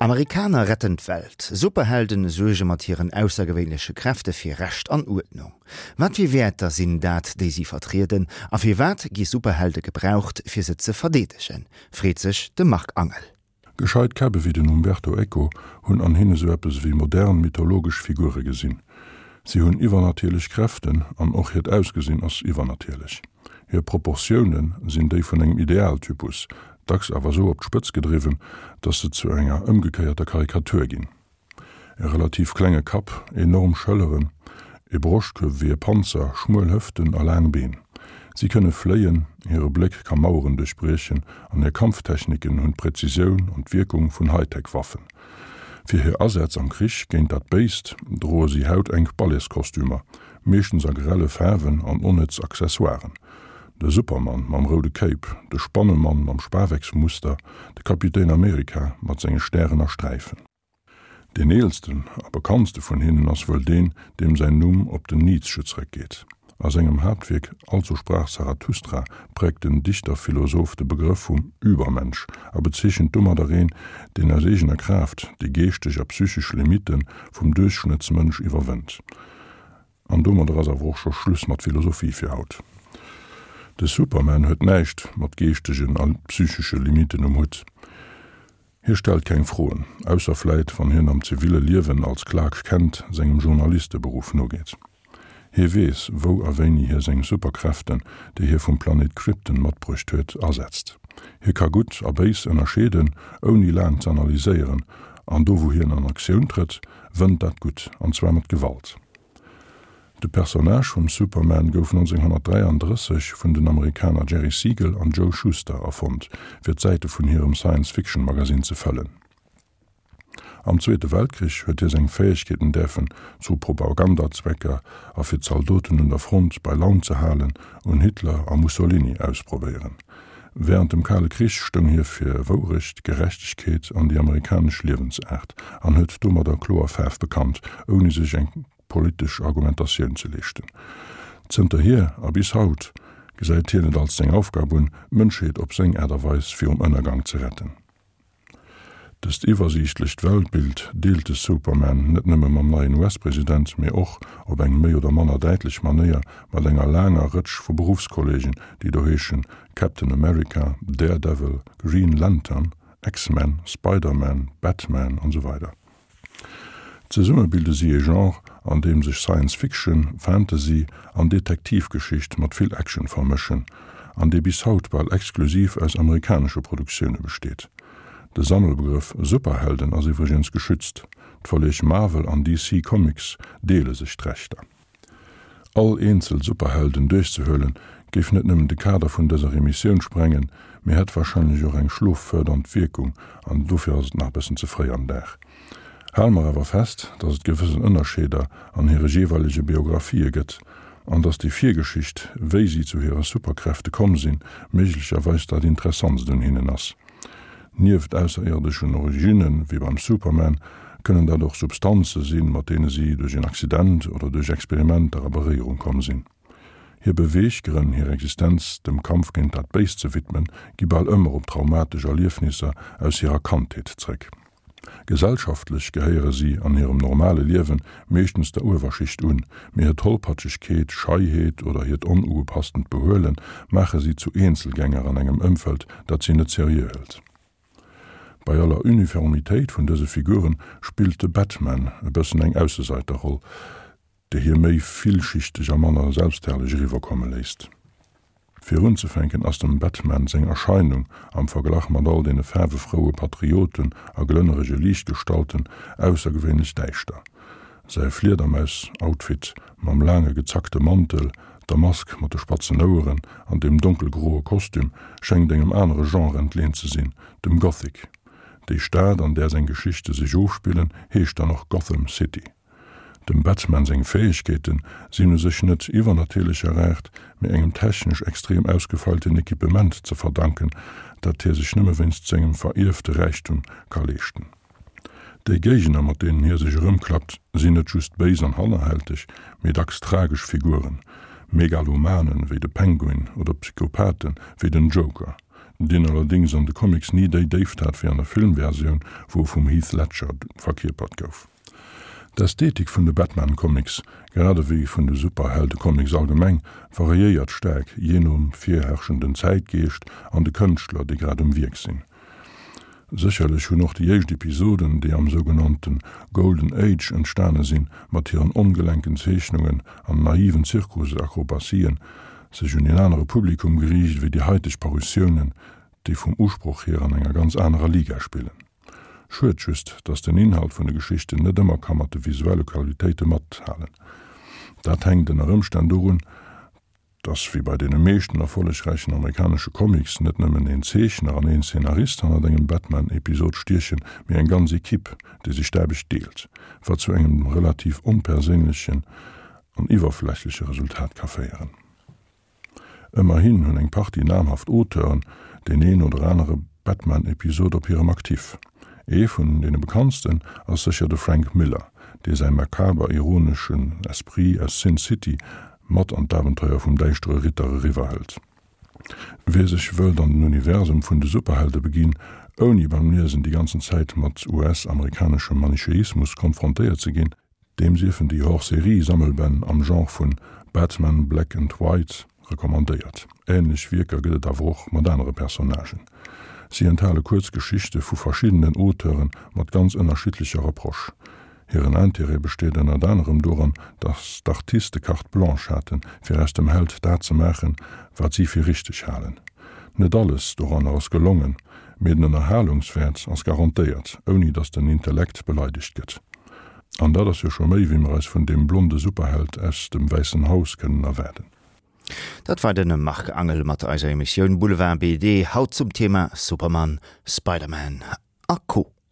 Amerikaner retten d'Welt, Superhelden suerge mat hiren aussergewéinleche Kräfte fir Recht an Uerdnung. Wat fir Wäerter sinn dat, déi si vertrieden, a firwat gi Superhelde gebraucht, fir se ze verdeedegen, freet sech de Marc Angel. Gescheit Käpp ewéi den Umberto Eco hunn an hinne sou eppes ewéi modern mythologesch Figure gesinn. Si hunn iwwernatierlech Kräften an och hiert Ausgesinn ass iwwernatierlech. Hir Proportioune sinn déi vun engem Idealtypus, dacks awer sou op d'Spëtz gedriwwen, datt se zu enger ëmgekéierter Karikatur ginn. E relativ klenge Kapp, enorm Schëlleren, e Broschtkuerf wéi e Panzer, schmuel Hëften a laang Been. Si kënne fléien, hire Bléck ka Maueren duerchbriechen an hir Kampftechniken hunn d'Präzisioun an d'Wierkung vun Hightech-Waffen. Fir hir Asätz am Krich géint dat Béist droe si hautenk Balletskostümer, meeschtens a grelle Faarwen an onnëtz Accessoiren. De Supermann mam roude Cape, de Spannemann mam Spawecksmuster, de Kapitän Amerika mat senge Stären a Sträifen. Deen eelsten a bekanntste vun hinnen ass wuel deen, deem säin Numm op den Nietzsche zréckgeet. A sengem Haaptwierk Also sprach Zarathustra präägt den Dichterphilosoph de Begrëff vum Übermensch a bezeechent domadder een, deen aus eegener Kraaft déi geeschteg a psychesch Limitte vum Duerchschnëttsmënsch iwwerwënnt. An domadder ass awer och scho Schluss mat Philosophie fir haut. De Superman huet näischt mat geeschtegen a psychesche Limitten um Hutt. Hie stellt keng Froen, ausser vläit wann hien am ziville Liewen als Clark Kent sengem Journalisteberuff nogeet. Hie weess, wou a wéini hie seng Superkräften, déi hie vum Planet Krypton matbruecht huet, asetzt. Hie ka Gutt a Béis ënnerscheeden, ouni laang z'analyséieren, an do wou hien an Aktioun trëtt, wënnt dat Gutt, an zwar mat Gewalt. De Personnage vum Superman gouf 1933 vun den Amerikaner Jerry Siegel an Joe Shuster erfonnt, fir d'Säite vun hirem Science-Fiction-Magasinn ze fëllen. Am Zweete Weltkrich huet hie seng Fäegkeeten däerfen zu Propagandazwecker a fir d'Zaldoten un der Front bei Laun ze halen un Hitler a Mussolini ausprobéieren. Wärend dem Kale Krich stoung hie fir Wourecht, Gerechtegkeet an déi amerikanesch Liewensaart an huet domadder kloer Faarf bekannt, ouni sech eng politesch Argumentatioun ze leeschten. Zënterhier a bis haut gesäit hien et als seng Aufgab un, d'Mënschheet op seng Aart a Weis virum Ënnergang ze retten. Dëst iwwersiichtlecht Weltbild deelt de Superman net nëmme mam neien US-President, mee och, op eng méi oder manner däitlech Manéier, mat enger laanger Rëtsch vu Beruffskolleegen, déi do heeschen Captain America, Daredevil, Green Lantern, X-Men, Spider-Man, Batman an esou weider. Zesumme bilde si ee Genre, an deem sech Science Fiction, Fantasy an Detektivgeschicht mat vill Action vermëschen, an dee bis haut bal exklusiv aus amerikanesche Produktioune besteet. De Sammelbegrëff Superhelden ass iwwregens geschützt, d'Verleeg Marvel an DC Comics deele sech d'Rechter. All eenzel Superhelden duerchzehuelen, géif net nëmmen de Kader vun dëser Emissioun sprengen, mee hätt warscheinlech och eng schloffërdernd Wierkung, an dofir ass et nach e bëssen ze fréi am Dag. Hale mer awer fest, dass et gewëssen Ënnerscheeder an hire jeeweilege Biographië gëtt, an dass déi Virgeschicht, wéi si zu hire Superkräfte komm sinn, méiglecherweis dat Interessantst un hinnen ass. Nieft ausserierdeschen Originne wéi beim Superman, kënnen dat och Substanze sinn, mat deene si duerch en Accident oder duerch Experimenter a Beréierung komm sinn. Hir Beweeggrënn, hir Existenz dem Kampf géint dat Béist ze widmen, gi bal ëmmer op traumatesch Erliefnisser aus hirer Kandheet zréck. Gesellschaftlech gehéiere si an hirem normale Liewen meeschtens der Uewerschicht un, mee hir Tollpatschegkeet, Scheiheet oder hiert onugepasstend Behuele maache si zu Eenzelgänger an engem Ëmfeld, dat si net seriö hëlt. Bei aller Uniformitéit vun dëse Figure spillt de Batman e bëssen eng Ausseseiterroll, déi hie méi villschichteg a manner selbstherrlech eriwwerkomme léisst. Fir unzefänken ass dem Batman seng Erscheinung, am Verglach mat all deene faarwefroue Patrioten a glënnerege Liichtgestalten, aussergewéinlech däischter. Säi Fliedermaus-Outfit mam laange gezackte Mantel, der Mask mat de spatzen Oueren an dem donkelgroe Kostüm schéngt engem anere Genre entleent ze sinn, dem Gothic. Déi Stad, an där seng Geschichte sech ofspillen, heescht dann och Gotham City. Dem Batman seng Fäegkeete sinn u sech net iwwernatierlecher Aart, mee engem technesch extrem ausgefeilten Equipement ze verdanken, dat hie sech nëmme wéinst sengem verierfte Räichtum ka leeschten. Déi Géigner, mat deenen hie sech erëmklappt, sinn net just béis an hannerhälteg, mee dacks tragesch Figuren, Megalomanen wéi de Penguin oder Psychopathe wéi den Joker. deen allerdéngs an de Comics ni déi Déift hat wéi an der Filmversioun, wou e vum Heath Ledger verkierpert gouf. D'Ästhetik vun de Batman-Comics, grad ewéi vun de Superhelde-Comics allgemeng, variéiert staark jee nom virherrschenden Zäitgeescht an de Kënschtler, déi grad um Wierk sinn. Sécherlech hunn och déi éischt Episoden, déi am sougenannte Golden Age entstane sinn, mat hiren ongelenken Zeechnungen an naiven Zirkusakrobatien, sech un een anere Publikum geriicht ewéi déi haiteg Parutiounen, déi vum Usproch hier an enger ganz anerer Liga spillen. Schued just, dass den Inhalt vun de Geschichten net ëmmer ka mat de visuelle Qualitéite mathalen. Dat hänkt ënner Ëmstänn dorun, dass wéi bei deene meeschten erfollegräichen amerikanesche Comics net nëmmen een Zeechner an een Szenarist hannert engem Batman-Episod stiechen, mee eng ganz Equipe, déi sech d'Aarbecht deelt, wat zu engem relativ onperséinlechen an iwwerflächleche Resultat ka féieren. Ëmmerhin hunn eng Partie namhaft Auteuren deen een oder anere Batman-Episod op hirem Actif. Ee vun deene bekanntsten ass sécher de Frank Miller, dee säi makaber ironeschen Esprit aus Sin City mat an d'Abenteuer vum däischtere Ritter eriwwerhëlt. Wie sech wëllt an den Universum vun de Superhelde beginn, ouni beim Liesen déi ganzen Zäit mat US-amerikaneschem Manicheismus konfrontéiert ze ginn, Deem siefen déi Hors-Série-Sammelbänn am Genre vun Batman Black and White recommandéiert. Änlech Wierker gëtt et awer och mat anere Personnagen. Si enthale kuerz Geschichte vu verschiddenen Auteure mat ganz ënnerschiddlecher Approche. Hiren Intérêt besteet ënnert anerem doran, datt d'Artiste Carte blanche haten, fir aus dem Held dat ze maachen, wat si fir richteg halen. Net alles doranner ass gelongen, mee den Ënnerhalungswäert ass garantéiert, ouni datt den Intellekt beleidegt gëtt. An dat ass jo scho méi, wéi mer eis vun deem blonde Superheld aus dem Wäissen Haus kënnen erwaarden. Dat war de Marc Angel mat eiser Emissioun Boulevard BD, haut zum Thema Superman, Spider-Man a Co.